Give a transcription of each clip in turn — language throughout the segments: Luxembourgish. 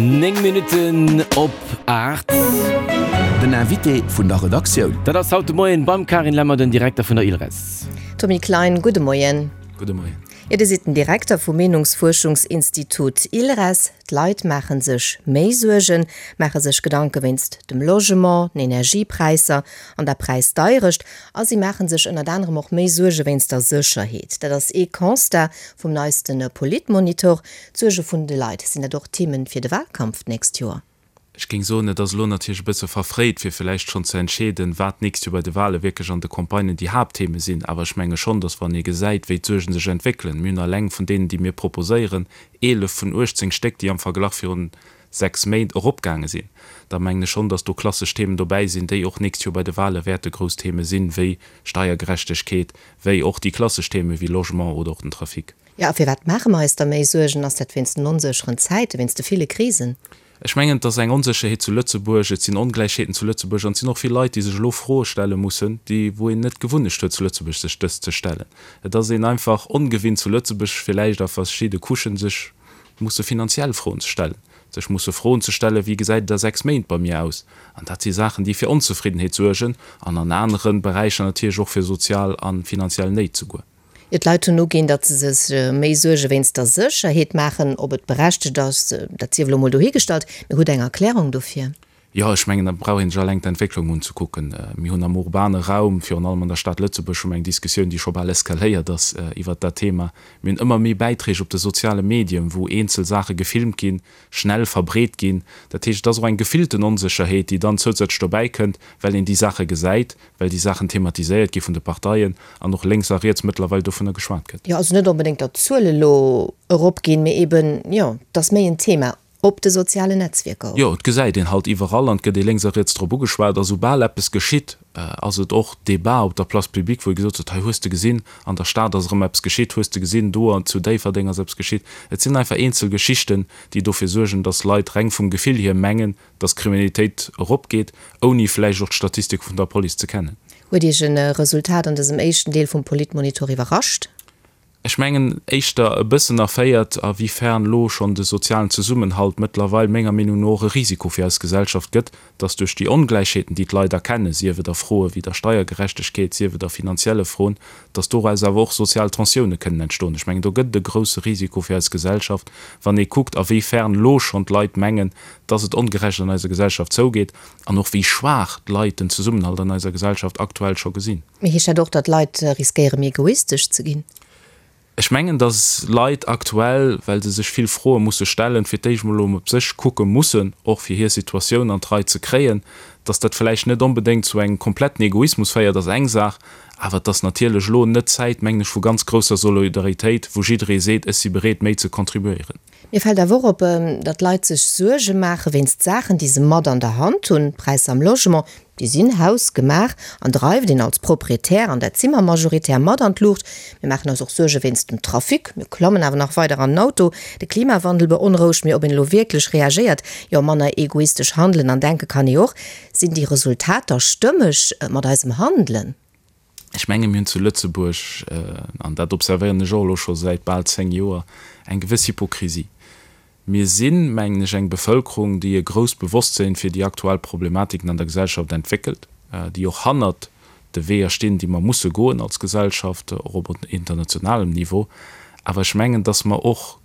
9 Minutten op 8. Den Invité vun der Redaktioun. Dat ass haut de Moien beim Carine Lemmer, den Direkter vun der ILReS. Tommy Klein, gudde Moien. Gudde Moien. Jo, Dir sidd den Direkter vum Meenungsfuerschungsinstitut ILReS. D'Leit maache sech méi Suergen, maache sech Gedanke wéinst dem Logement, den Energiepräisser an der Präisdeierecht a si maache sech ënnert anerem och méi Suerge wéinst der Sécherheet. Dat ass ee Constat vum neiste Politmonitor. D'Suerge vun de Leit, sinn dat och Themen fir de Wahlkampf d'nächst Joer? Ech géing soen, et ass elo natierlech e bësse verfréit, fir vläicht schonn ze entscheeden, wat d'nächst Joer bei de Wahle wierklech an de Campagnen déi Haapttheme sinn. Awer ech menge schonn, datt wann ee gesäit, wéi d'Suerge sech entwéckelen, mir hunn eleng vun deenen, déi mir proposéieren, 11 vun 18 Stéck, déi am Verglach virun 6 Méint eropgaange sinn, da mengen ech schonn, datt do klassesch Themen dobäi sinn, déi och d'nächst Joer bei de Wahle wäerte grouss Theme sinn, wéi Steiergerechtegkeet, wéi och déi klassesch Theme wéi Logement oder och den Trafic. Jo, a firwat maache mer eis da méi Suergen? Ass dat wéinst den onsécheren Zäiten, wéinst de ville Krisen? Ech mengen, et ass eng Onsécherheet zu Lëtzebuerg, et sinn Ongläichheeten zu Lëtzebuerg an et sinn och vill Leit, déi sech elo Froe stelle mussen, déi, wou een net d'Gewunnecht huet zu Lëtzebuerg sech dës ze stellen. Et ass een einfach ongewinnt zu Lëtzebuerg villäicht a verschidde Couchen sech musse finanziell Froen ze stellen, sech musse Froen ze stellen, wéi gesäit et a 6 Méint bei mir aus? An dat si Saachen, déi fir Onzefriddenheet suergen an an anere Beräicher natierlech och fir sozial a finanziell Néit souguer. Jo, d'Leit hunn uginn, datt se sech méi Suerge wéinst der Sécherheet maachen. Ob et berechtegt ass, dat sief elo mol dohigestallt. Mee hutt Der eng Erklärung dofir? Jo, ech mengen, da brauch ee sech alleng d'Entwécklung unzekucken. Mir hunn am urbane Raum, virun allem an der Stad Lëtzebuerg, hu mer eng Diskussioun, déi scho bal eskaléiert ass iwwert dat Thema. Mir hunn ëmmer méi Bäiträg op de soziale Medien, wou eenzel Saache gefilmt ginn, schnell verbreet ginn. Dat heescht, et ass och eng gefillten Onsécherheet, déi dann zousätzlech dobäi kënnt, well een déi Saache gesäit, well déi Saachen thematiséiert gi vun de Parteien an och lénks a riets mëttlerweil dovunner geschwat gëtt. Jo, also net onbedéngt, datt d'Zuele lo eropginn, mee eben, jo, et ass méi en Thema op de sozialen Netzwierker och. Jo, et gesäit een halt iwwerall an et gëtt ee lénks a riets drop ugeschwat a soubal eppes geschitt, ass et och Débat op der Place publique, wou ee gesot huet, hei hues de gesinn, an der Stad ass erëm eppes geschitt, hues de gesinn, do an zu Déifferdeng ass eppes geschitt. Et sinn einfach eenzel Geschichten, déi dofir suergen, datt Leit reng vum Gefill hier mengen, dass d'Kriminalitéit eropgeet, ouni vläicht och d'Statistike vun der Police ze kennen. Huet Iech e Resultat an dësem éischten Deel vum Politmonitor iwwerrascht? Ech mengen éischter e bëssen erféiert, a wéi fern elo schonn de sozialen Zesummenhalt mëttlerweil menger Meenung no och e Risiko fir eis Gesellschaft gëtt, dass duerch déi Ongläichheeten, déi d'Leit erkennen, sief et a Froe wéi der Steiergerechtegkeet, sief et a finanzielle Froen, dass doraus awer och sozial Tensioune kënnen entstoen. Ech mengen, do gëtt et e grousse Risiko fir eis Gesellschaft, wann ee kuckt, a wéi fern elo schonn d'Leit mengen, dass et ongerecht an eiser Gesellschaft zougeet an och wéi schwaach d'Leit den Zesummenhalt an eiser Gesellschaft aktuell scho gesinn. Mee heescht dat och, datt Leit riskéiere méi egoistesch ze ginn? Ech mengen, dass Leit aktuell, well se sech vill Froe musse stellen, fir d'éischt mol op sech kucke mussen, och fir hir Situatioun an d'Rei ze kréien. Dass dat vläicht net onbedéngt zu engem kompletten Egoismus féiert, ass eng Saach, awer et ass natierlech elo net d'Zäit, mengen ech, vu ganz grousser Solidaritéit, wou jidderee seet, ech si bereet, méi ze contribuéieren. Mir fält awer och op, datt d'Leit sech Suerge maache wéinst Saachen, déi se mat an der Hand hunn. D'Präisser am Logement, déi sinn hausgemaach an dreift een als Proprietär, an dat si mer majoritär, mat an d'Luucht. Mir maachen eis och Suerge wéinst dem Trafic, mir klammen awer nach weider an den Auto. De Klimawandel beonrouegt, mee ob een elo wierklech reagéiert, jo manner egoistesch handelen an denke kann ee och. Sinn déi Resultater stëmmeg mat eisem Handelen? Ech menge mir hunn zu Lëtzebuerg, an dat observéieren ech och elo scho säit bal 10 Joer, eng gewëss Hypokrisie. Mir sinn, mengen ech, eng Bevëlkerung, déi e grousst Bewosstsinn fir déi aktuell Problematiken an der Gesellschaft entwéckelt, déi och hannert de Weeër stinn, déi mer musse goen als Gesellschaft, och op internationalem Niveau. Awer ech mengen, dass mer och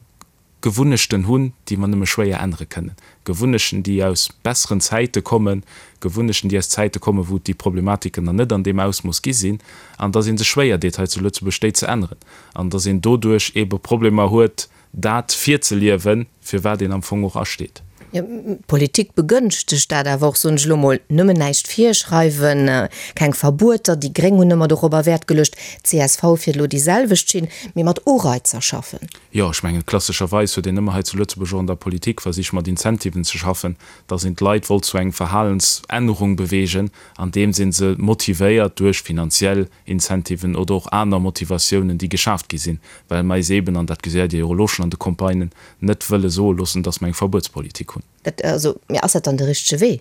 Gewunnechten hunn, déi mer nëmme schwéier ännere kënnen. Gewunnechten, déi aus besseren Zäite kommen, Gewunnechten, déi aus Zäite kommen, wou et déi Problematiken nach net an deem Ausmooss gi sinn, an dass ee sech schwéier deet hei zu Lëtzebuerg, déi ze änneren, an dass een doduerch eebe Problemer huet, dat virzeliewen, fir wat een am Fong och asteet. Jo, d'Politik begënschtegt dat awer och, soen ech elo mol, nëmmen näischt virschreiwen, keng Verbueter, déi Gréng hunn ëmmer dorobber Wäert geluecht, csv fiert elo déi selwecht Schinn, mee mat Ureizer schaffen. Jo, ech mengen, klassescherweis huet een ëmmer hei zu Lëtzebuerg och an der Politik versicht mat Incentiven ze schaffen, dass een d'Leit wollt zu engem Verhalensännerung bewegen, andeems ee se motivéiert duerch finanziell Incentiven oder och aner Motivatiounen, déi geschaaft gi sinn, well mer eis eeben, an dat gesäit Dir jo och elo schonn an de Campagnen, net wëlle soe loossen, dass mer eng Verbuetspolitik hunn. Dat, also, mee ass dat dann de richtege Wee?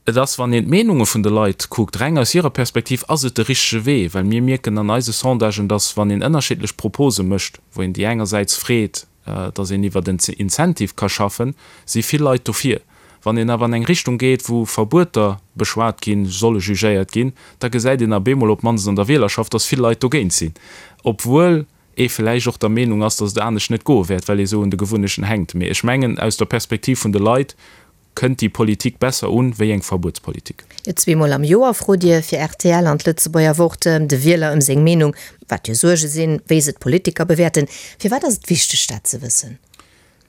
Et ass, wann een d'Meenunge vun de Leit kuckt, reng aus hirer Perspektiv, ass et de richtege Wee, well mir mierken an eise Sondagen, dass, wann een ënnerschiddlech Propose mécht, wou een déi engersäits freet. dass een iwwert en Incentive ka schaffen, si vill Leit dofir. Wann een awer an eng Richtung geet, wou Verbueter beschwat ginn, solle jugéiert ginn, da gesäit een ab eemol, op d'mannst an der Wielerschaft, dass vill Leit dogéint sinn, obwuel ee vläicht och der Meenung ass, dass et anescht net goe wäert, well ee sou un de Gewunnechten hänkt. Mee ech mengen, aus der Perspektiv vun de Leit kënnt déi Politik besser un, wéi eng Verbuetspolitik. Zweemol am Joer frot Dir fir rtl an d'Lëtzebuerger Wort de Wieler ëm seng Meenung, wat hir Suerge sinn, wéi se d'Politiker bewäerten. Firwat ass et wichteg, dat ze wëssen?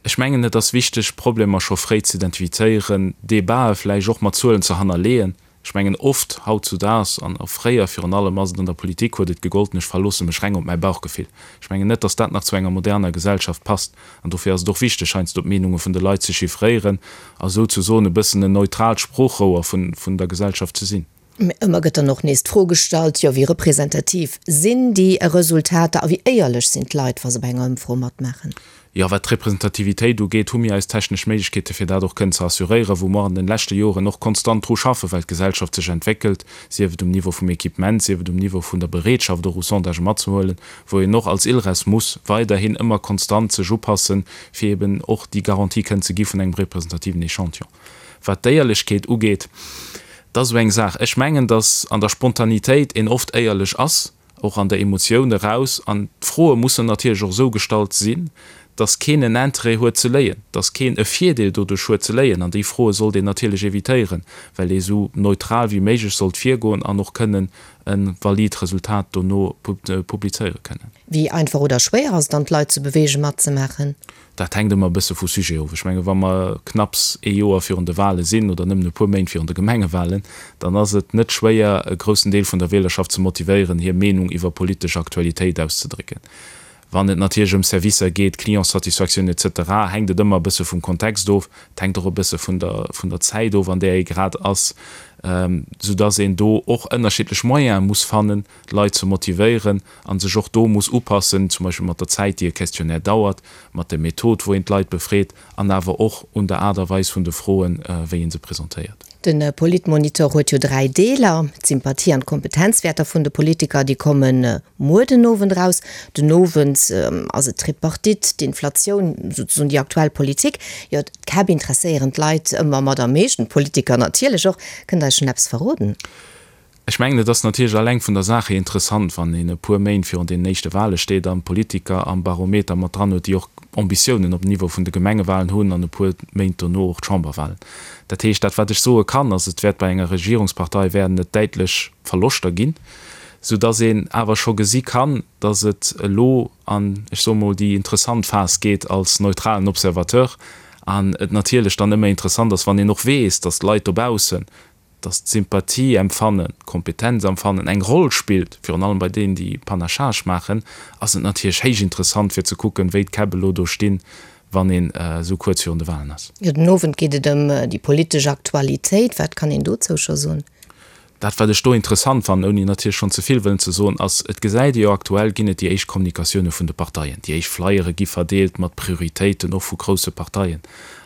Ech mengen, et ass wichteg, Problemer scho fréi ze identifizéieren, Debatë vläicht och mat Zuelen ze hannerleeën. Ech mengen, oft hautzudaags, an och fréier virun allem, ass et an der Politik, huet et gegolten, ech verloosse mech reng op mäi Bauchgefill. Ech mengen net, datt dat nach zu enger moderner Gesellschaft passt. An dofir ass et och wichteg, heiansdo d'Meenunge vun de Leit ze chiffréieren a souzesoen e bëssen en neutraalt Sproochrouer vun der Gesellschaft ze sinn. Mä ëmmer gëtt dann och nees d'Fro gestallt, jo, wéi representativ sinn déi Resultater a wéi éierlech sinn d'Leit, wa se bei enger Ëmfro matmaachen? Jo, wat d'Representativitéit ugeet, hu mir eis technesch Méiglechkeete fir dat och kënnen ze assuréieren, wou mer an den leschte Joren och konstant dru schaffen, well d'Gesellschaft sech entwéckelt, sief et um Niveau vum Equipement, sief et um Niveau vun der Bereetschaft och u Sondagë matzehuelen, wou een och als ILReS muss weiderhin ëmmer konstant sech upassen, fir eben och déi Garantie kënnen ze gi vun engem representativen Echantillon. Wat d'Éierlechkeet ugeet, dat ass esou eng Saach. Ech mengen, datt an der Spontanitéit een oft éierlech ass, och an der Emotioun eraus. An d'Froe mussen natierlech och esou gestallt sinn, datt keen en Interêt huet ze léien, datt keen e Virdeel doduerch huet ze léien. An déi Froe sollt een natierlech evitéieren, well ee esou neutral wéi méiglech sollt virgoen an och kënnen e valid Resultat dono publizéiere kënnen. Wéi einfach oder schwéier ass et dann, d'Leit ze beweegen, matzemaachen? Dat hänkt ëmmer e bësse vu Sujet of. Ech menge wa mer knapps ee Joer virun de Wale sinn oder nëmmen e puer Méint virun de Gemengewalen, dann ass et net schwéier, e groussen Deel vun der Wielerschaft ze motivéieren, hir Meenung iwwer politesch Aktualitéit auszedrécken. Wann et natierlech ëm Servicer geet, Clientssatisfaktioun et cetera, hänkt et ëmmer e bësse vum Kontext of. Et hänkt och e bësse vun der, vun der Zäit of, an där ee grad ass, soudass een do och ënnerschiddlech Moyene muss fannen, d'Leit ze motivéieren a sech och do muss upassen, zum Beispill mat der Zäit, déi e Questionnaire dauert, mat der Method, wou een d'Leit befreet an awer och un der Aart a Weis vun de Froen, wéi ee se presentéiert. De Politmonitor huet jo 3 Deeler, D'Sympathie an d'Kompetenzwäerter vun de Politiker, déi komme muer den Owend eraus. Den Owend ass et d'Tripartite, d'Inflatioun, souzesoen déi aktuell Politik. Jo, d'Käpp interesséieren d'Leit ëmmer mat am meeschten, d'Politiker natierlech och. Kënnt Der eis schonn eppes verroden? Ech mengen, et ass natierlech alleng vun der Saach hier interessant, wann een e puer Méint virun deenen éischte Wahle steet an Politiker am Barometer mat dran huet, déi och Ambitiounen op dem Niveau vun de Gemengewahlen hunn an e puer Méint dono och d'Chamberwahlen. Dat heescht, dat wat ech soe kann, ass, et wäert bei enger Regierungspartei wäerten et däitlech Verloschter ginn, soudass een awer scho gesi kann, dass et elo an, ech soe mol, déi interessant Phas geet als neutralen Observateur an et natierlech dann ëmmer interessant ass, wann een och weess, dass d'Leit dobaussen dass d'Sympathie-Empfannen, d'Kompetenz-Empfannen eng Roll spillt, virun allem bei deenen, déi Panachage maachen, ass et natierlech héich interessant fir ze kucken, wéi d'Käpp elo do stinn, wann een esou kuerz virun de Wahlen ass. Jo, den Owend geet et ëm déi politesch Aktualitéit. Wat kann een dozou scho soen? Dat, wat ech do interessant fannen, ouni natierlech schonn ze vill wëllen ze soen, ass, et gesäit ee jo aktuell ginn et déi éischt Kommunikatioune vun de Parteien, déi éischt Flyere gi verdeelt mat Prioritéiten och vu grousse Parteien.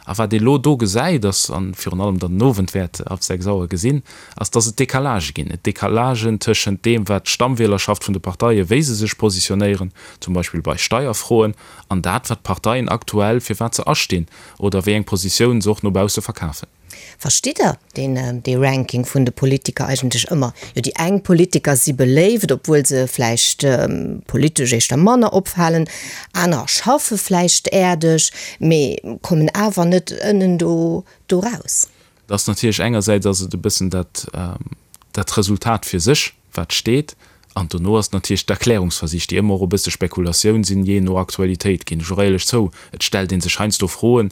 A wat ee lo do gesäit ass, a virun allem dann den Owend wäert ab 6 Auer gesinn, ass, dass et Decalagë ginn. Et Decalagen tëschent deem, wat d'Stammwielerschaft vun de Parteien, wéi se sech positionéieren, zum Beispill bei Steierfroen, an dat, wat d'Parteien aktuell, fir wat se astinn oder wéi eng Positioun se och no bausse verkafen. Verstitt Der deen, dee Ranking vun de Politiker eigentlech ëmmer? Jo, déi eng Politiker si beléift, obwuel se vläicht politesch éischter manner opfalen, anerer schaffe vläicht äerdeg, mee kommen awer net ënnen do do raus. Et ass natierlech engersäits ass et e bëssen dat, dat Resultat fir sech, wat steet, an dono ass et natierlech d'Erklärungsversich, déi ëmmer och e bësse Spekulatioun sinn, jee no Aktualitéit, ginn ech och éierlech zou. Et stellt ee sech heiansdo Froen,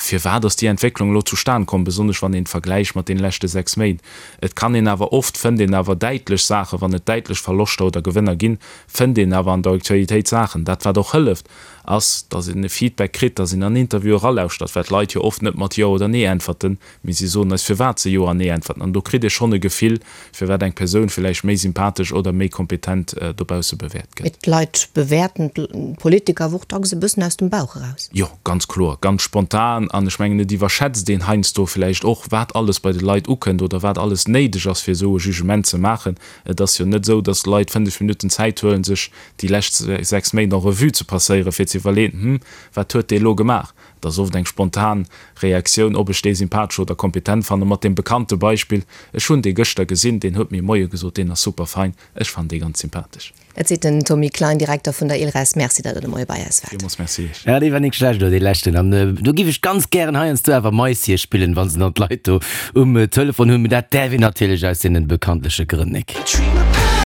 Firwat ass déi Entwécklung elo zustan komm, besonnesch wann een d'Vergläich mat deene leschte 6 Méint? Et kann een awer, oft fënnt een awer däitlech Saachen, wann et däitlech Verloschter oder Gewënner ginn, fënnt een awer an der Aktualitéit Saachen. Dat wat och hëlleft, ass, datt een e Feedback kritt, datt een an Interviewe eralauschtert, well d'Leit jo oft net mat Jo oder Nee äntwerten, mee si soen eis firwat se Jo an Nee äntwerten. An do kritt ee schonn e Gefill, firwat eng Persoun villäicht méi sympathesch oder méi kompetent dobausse bewäert gëtt. Mee d'Leit bewäerten d'Politiker awer och dacks e bëssen aus dem Bauch eraus. Jo, ganz kloer, ganz spontan. spontan an ech mengen, et iwwerschätzt een heiansdo vläicht och, wat alles bei de Leit ukënnt oder wat alles néideg ass, fir esou e Jugement ze maachen. Et ass jo net esou, datt d'Leit 5 Minutten Zäit huelen, sech déi lescht 6 Méint en revue ze passéieren, fir ze iwwerleeën, Hm, wat huet dee elo gemaach? Et ass oft eng spontan Reaktioun, ob ech dee sympathesch oder kompetent fannen, mat deem bekannte Beispill, Ech hunn dee gëschter gesinn, deen huet mir Moie gesot, deen ass super fein, ech fannen dee ganz sympathesch. Dat seet den Tommy Klein, Direkter vun der ILRES. Merci, datt Der de Moie bei eis waart. Villmools Merci Iech. Ja, dee war nik schlecht, dee leschten. An do giff ech ganz gären heiansdo awer Maissie spillen, wa se dann d'Leit do um Telefon hunn. Mee dat däerf een natierlech aus deenen bekanntleche Grënn nik.